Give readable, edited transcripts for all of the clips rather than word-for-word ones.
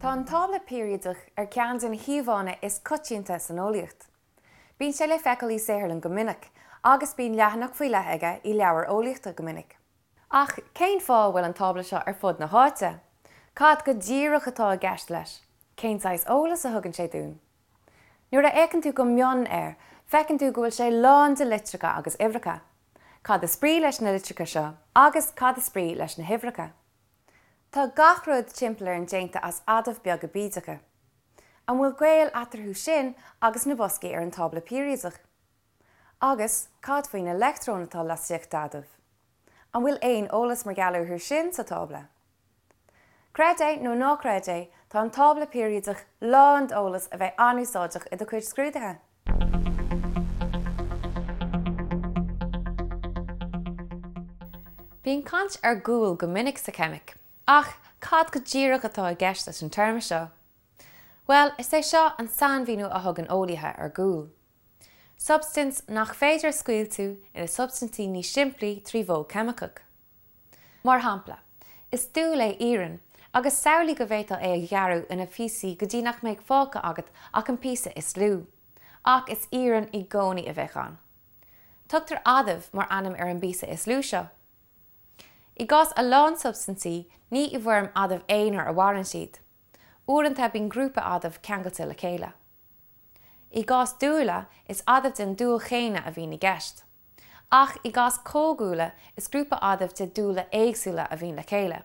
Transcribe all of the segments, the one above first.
Tá an tábla peiriadach ar ceann de na híomhánna is coitianta san eolaíocht. Bíonn sé le feiceáil i saotharlann go minic, agus bíonn leathanach faoi leith aige i leabhair eolaíochta go minic. Ach cén fáth a bhfuil an tábla seo ar fud na háite? Cad go díreach atá i gceist leis? Cén saghas eolas a thugann sé dúinn? Nuair a fhéachann tú go mion air, feiceann tú go bhfuil sé lán de litreacha agus uimhreacha. Cad is brí leis na litreacha seo agus cad is brí leis na huimhreacha? Tá gach rud timpeall orainn déanta as adaimh beaga bídeacha. An bhfuil gaol eatarthu sin agus na boscaí ar an tábla peiriadach? Agus cad faoi na leictreoin atá laistigh d'adaimh? An bhfuil aon eolas mar gheall orthu sin sa tábla? Creid é nó ná creid é, tá an tábla peiriadach lán d'eolas a bheidh an-úsáideach i do chuid scrúduithe! Bíonn caint ar dhúil go minic sa cheimic, ach cad go díreach atá i gceist leis an téarma seo? Bhuel, is é seo an sainmhíniú a thugann eolaithe ar dhúil. Substaint nach féidir a scoilteadh ina substaintí níos simplí trí mhodh ceimiceach. Mar shampla, is dúil é iarann, agus samhlaigh go bhféadfá é a ghearradh ina phíosaí go dtí nach mbeadh fágtha agat ach an píosa is lú. Ach is iarann i gcónaí a bheadh ann. Tugtar adamh mar ainm ar an bpíosa is lú seo. I gcás a lán substaintí, ní i bhfoirm adamh aonair a mhaireann siad. Uaireanta bíonn grúpa adamh ceangailte le chéile. I gcás dúile, is adaimh den dúil chéanna a bhíonn i gceist. Ach i gcás comhdhúile, is grúpa adamh de dúile éagsúla a bhíonn le chéile.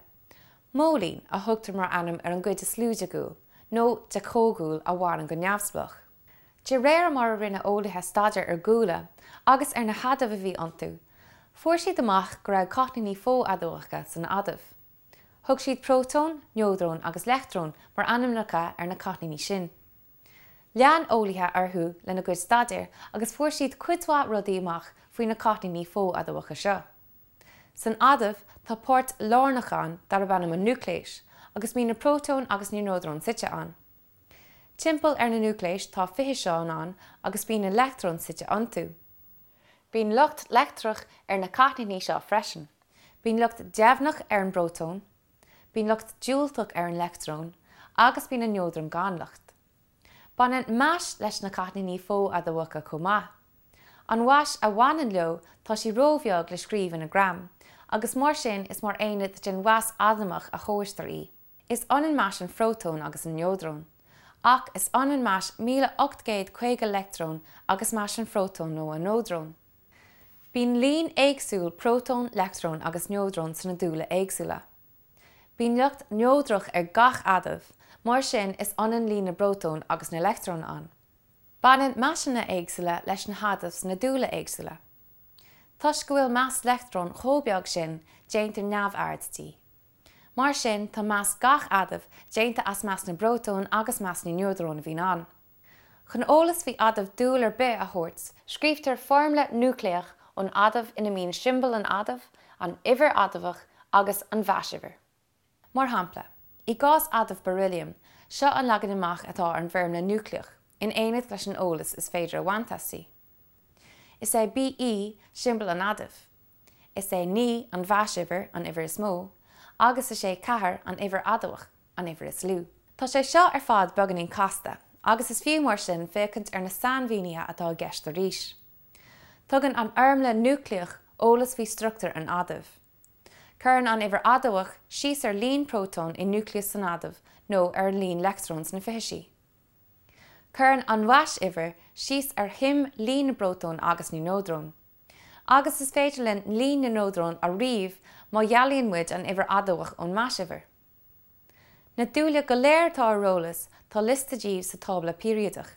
Móilín a thugtar mar ainm ar an gcuid is lú de dhúil, nó de chomhdhúil a mhaireann go neamhspleách. De réir mar a rinne eolaithe staidéar ar dhúile agus ar na hadaimh a bhí iontu, fuair siad amach go raibh cáithníní fo-adamhacha san adamh. Thug siad prótón, neodrón agus leictreon mar ainmneacha ar na cáithníní sin. Lean eolaithe orthu lena gcuid staidéir agus fuair siad cuid mhaith rudaí amach faoi na cáithníní fo-adamhacha seo. San adamh tá páirt lárnach ann darb ainm an núicléas agus bíonn na prótóin agus na neodróin suite ann. Timpeall ar na núicléis tá fithiseáin ann agus bíonn na leictreoin suite iontu. Bíonn lucht leictreach ar na cáithníní seo freisin. Bíonn lucht deimhneach ar an bprótón, Bíonn lucht diúltach ar an leictreon agus bíonn an neodrón gan lucht. Baineann mais leis na cáithníní fo-adamhacha chomh maith. An mhais a bhaineann leo tá sí róbheag le scríobh ina ngraim, agus mar sin is mar aonad den mhais adamhach a thomhaistear í. Is ionann mais an phrótóin agus an neodróin. Ach is ionann mais 1850 leictreon agus mais an phrótóin nó an neodróin. Bíonn líon éagsúil prótón, leictreon agus neodrón sna dúile éagsúla. Bíonn lucht neodrach ar gach adamh, mar sin is ionann líon na bprótón agus na leictreon ann. Baineann maiseanna éagsúla leis na hadaimh sna dúile éagsúla. Toisc go bhfuil mais leictreoin chomh beag sin, déantar neamhaird di. Mar sin, tá mais gach adaimh déanta as mais na bprótón agus mais na neodrón a bhíonn ann. Chun eolas faoi adamh dúil ar bith a thabhairt, scríobhtar foirmle núicléach an adaimh ina mbíonn siombail an adaimh, an uimhir adamhach agus an mhaisuimhir. Mar shampla, i gcás adamh beirilliam, seo an leagan amach atá ar an bhfoirmle núicléach, in éineacht leis an eolas is féidir a bhaint aisti. Is é Be siombail an adaimh. Is é 9 an mhaisuimhir, an uimhir is mó, agus is é 4 an uimhir adamhach. an uimhir is lú. Tá sé seo ar fad beagáinín casta, agus is fiú mar sin féachaint ar na sainmhínithe atá i gceist arís. Tugann an fhoirmle núicléach eolas faoi struchtúr an adaimh. Cuireann an uimhir adamhach síos ar líon prótón i núicléas an adaimh nó ar an líon leictreon sna fithisí. Cuireann an mhaisuimhir síos ar shuim líon na bprótón agus na neodrón. Agus is féidir linn líon na neodrón a ríomh má dhealaíonn muid an uimhir adamhach ón maisuimhir. Na dúile go léir atá ar eolas, tá liosta díobh sa tábla peiriadach.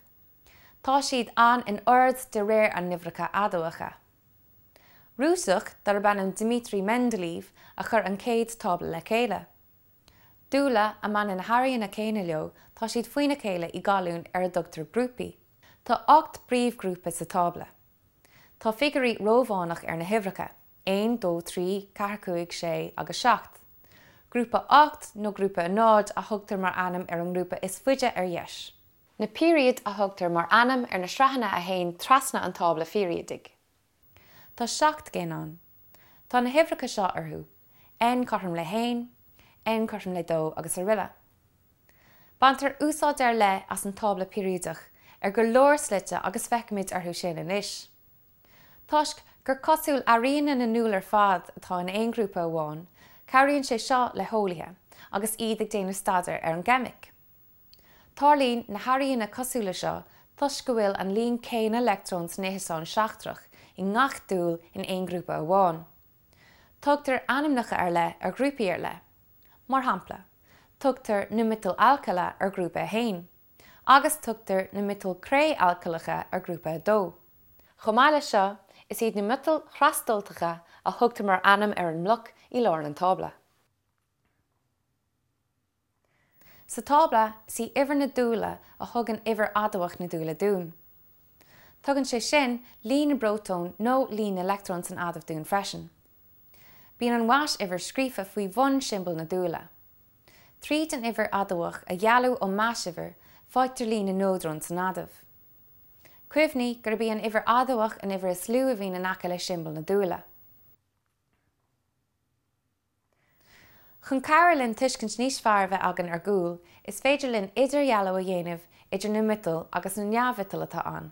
Tá siad ann in ord de réir a n-uimhreacha adamhacha. Rúiseach darb ainm Dmitri Mendeleev a chuir an chéad tábla le chéile. Dúile a mbaineann na hairíonna céanna leo, tá siad faoina chéile i gcolúin ar a dtugtar grúpaí. Tá 8 bpríomhghrúpa sa tábla. Tá figiúirí Rómhánach ar na huimhreacha. 1, 2, 3, 4, 5, 6 agus 7. Grúpa 8 nó Grúpa 0 a thugtar mar ainm ar an ngrúpa is faide ar dheis. Na peiriaid a thugtar mar ainm ar na sraitheanna a théann trasna an tábla pheiriadaigh. Tá 7 gcinn ann. Tá na huimhreacha seo orthu, N cothrom le haon, N cothrom le dó agus aroile. Baintear úsáid ar leith as an tábla peiriadach ar go leor slite agus féachfaimid orthu sin anois. Toisc gur cosúil airíonna na ndúl ar fad atá in aon ghrúpa amháin, cabhraíonn sé seo le heolaithe agus iad ag déanamh staidéir ar an gceimic. Tarlaíonn na hairíonna cosúla seo toisc go bhfuil an líon céanna leictreon san fhithiseán seachtrach i ngach dúil in aon ghrúpa amháin. Tugtar ainmneacha ar leith ar ghrúpaí ar leith. Mar shampla, tugtar na miotail alcaile ar ghrúpa 1, agus tugtar na miotail cré-alcaileacha ar ghrúpa 2. Chomh maith leis seo, is iad na miotail thrasdultacha a thugtar mar ainm ar an mbloc i lár an tábla. Sa tábla, is í uimhir na dúile a thugann uimhir adamhach na dúile dúinn. Tugann sé sin líon na bprótón nó líon na leictreon san adamh dúinn freisin. Bíonn an mhais-uimhir scríofa faoi bhun siombail na dúile. Tríd an uimhir adamhach a dhealú ón mais-uimhir, faightear líon na neodrón san adamh. Cuimhnigh gurb í an uimhir adamhach an uimhir is lú a bhíonn in aice le siombail na dúile. Chun cabhrú linn tuiscint níos fearr a bheith againn ar dhúil, is féidir linn idirdhealú a dhéanamh idir na miotail agus na neamh-mhiotail atá ann.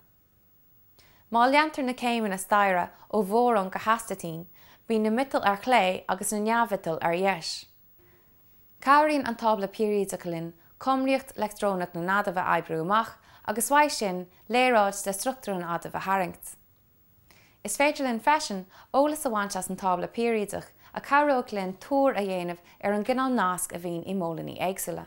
Má leantar na céimeanna staighre ó bhórón go hastaitín, bíonn na miotail ar chlé agus na neamh-mhiotail ar dheis. Cabhraíonn an tábla peiriadach linn cumraíocht leictreonach na n-adamh a oibriú amach agus uaidh sin léaráid de struchtúr an adaimh a tharraingt. Is féidir linn freisin eolas a bhaint as an tábla peiriadach a chabhróidh linn tuar a dhéanamh ar an gcineál nasc a bhíonn i móilíní éagsúla.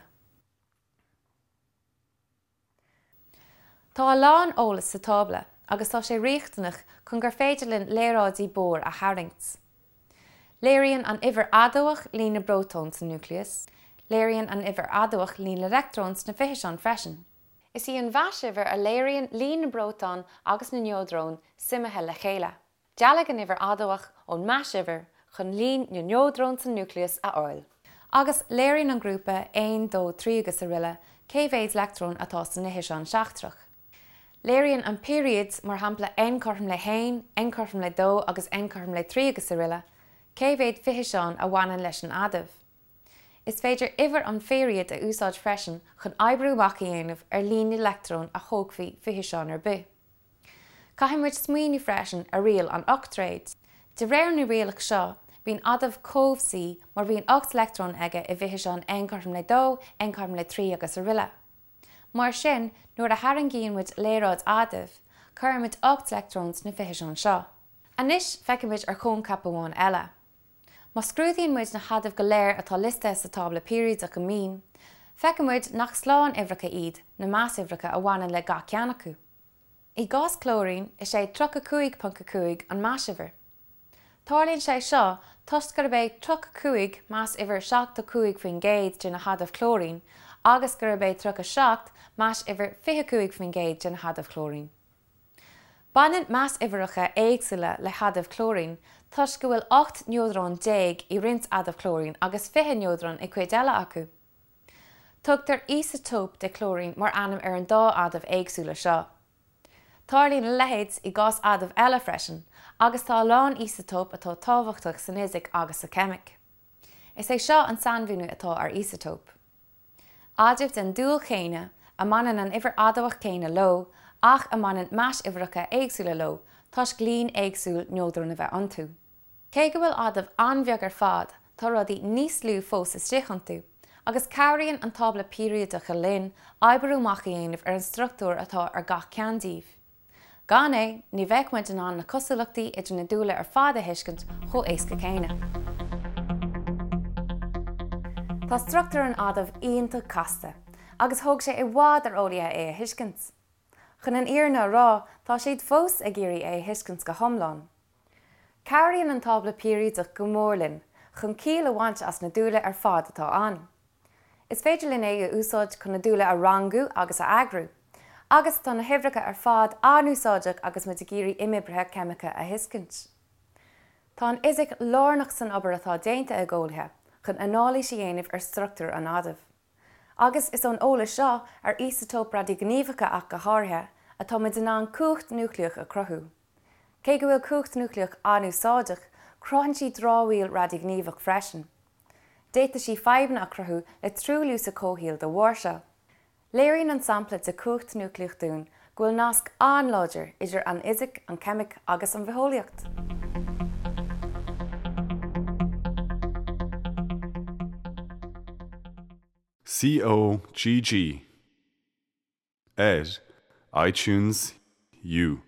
Tá a lán eolais sa tábla agus tá sé riachtanach chun gur féidir linn léaráidí Bohr a tharraingt. Léiríonn an uimhir adamhach líon na bprótón sa núicléas. Léiríonn an uimhir adamhach líon na leictreon sna fithiseáin freisin. Is í an mhais-uimhir a léiríonn líon na bprótón agus na neodrón suimithe le chéile. Dealaigh an uimhir adamhach ón mais-uimhir chun líon na neodrón sa núicléas a fháil. Agus léiríonn an grúpa 1, 2, 3 agus aroile cé mhéad leictreon atá san fhithiseán seachtrach. Léiríonn an peiriad, mar shampla N cothrom le haon, N cothrom le dó agus N cothrom le trí agus aroile, cé mhéad fithiseán a bhaineann leis an adamh. Is féidir uimhir an pheiriaid a úsáid freisin chun oibriú amach a dhéanamh ar líon na leictreon a thógfaidh fithiseán ar bith. Caithfidh muid smaoineamh freisin ar riail an ochtréid. De réir na rialach seo, bíonn adamh cobhsaí má bhíonn 8 leictreon aige i bhfithiseán N cothrom le 2, N cothrom le 3 agus aroile. Mar sin, nuair a tharraingíonn muid léaráid adaimh, cuireann muid 8 leictreon sna fithiseáin seo. Anois feicfimid ar choincheap amháin eile. Má scrúdaíonn muid na hadaimh go léir atá liostaithe sa tábla peiriadach go mion, feicfidh muid nach slánuimhreacha iad na mais-uimhreacha a bhaineann le gach ceann acu. I gcás clóirín, is é 35.5 an mais-uimhir. Tarlaíonn sé seo toisc gurb é 35 mais-uimhir 75% de na hadaimh clóirín agus gurb é 37 mais-uimhir 25% de na hadaimh chlóirín. Baineann mais-uimhreacha éagsúla le hadaimh clóirín toisc go bhfuil 18 neodrón i roinnt adamh clóirín agus 20 neodrón i gcuid eile acu. Tugtar íosatóip de chlóirín mar ainm ar an dá adamh éagsúla seo. Tarlaíonn a leithéid i gcás adaimh eile freisin agus tá a lán íosatóp atá tábhachtach san fhisic agus sa cheimic. Is é seo an sainmhíniú atá ar íosatóp. Adaimh den dúil chéanna, a mbaineann an uimhir adamhach chéanna leo, ach a mbaineann mais-uimhreacha éagsúla leo toisc líon éagsúil neodrón a bheith iontu. Cé go bhfuil adaimh an-bheag ar fad, tá rudaí níos lú fós istigh iontu, agus cabhraíonn an tábla peiriadach linn oibriú amach a dhéanamh ar an struchtúr atá ar gach ceann díobh. Gan é, ní bheadh muid in ann na cosúlachtaí idir na dúile ar fad a thuiscint chomh éasca céanna. Tá struchtúr an adaimh iontach casta, agus thóg sé i bhfad ar eolaithe é a thuiscint. Chun an fhírinne a rá, tá siad fós ag iarraidh é a thuiscint go hiomlán. Cabhraíonn an tábla peiriadach go mór linn chun ciall a bhaint as na dúile ar fad atá ann. Is féidir linn é a úsáid chun na dúile a rangú agus a eagrú. Agus tá na huimhreacha ar fad an-úsáideach agus muid ag iarraidh imoibrithe ceimiceacha a thuiscint. Tá an fhisic lárnach san obair atá déanta ag eolaithe chun anailís a dhéanamh ar struchtúr an adaimh. Agus is ón eolas seo, ar íosatóip radaighníomhacha ach go háirithe, atá muid in ann cumhacht núicléach a chruthú. Cé go bhfuil cumhacht núicléach an-úsáideach, cruthaíonn sí dramhaíl radaighníomhach freisin. D'fhéadfadh sí fadhbanna a chruthú le truailliú sa chomhshaol de bharr seo. Léiríonn an sampla de chumhacht núicléach dúinn go bhfuil nasc an-láidir idir an fhisic, an cheimic agus an bhitheolaíocht. COGG ar iTunes U.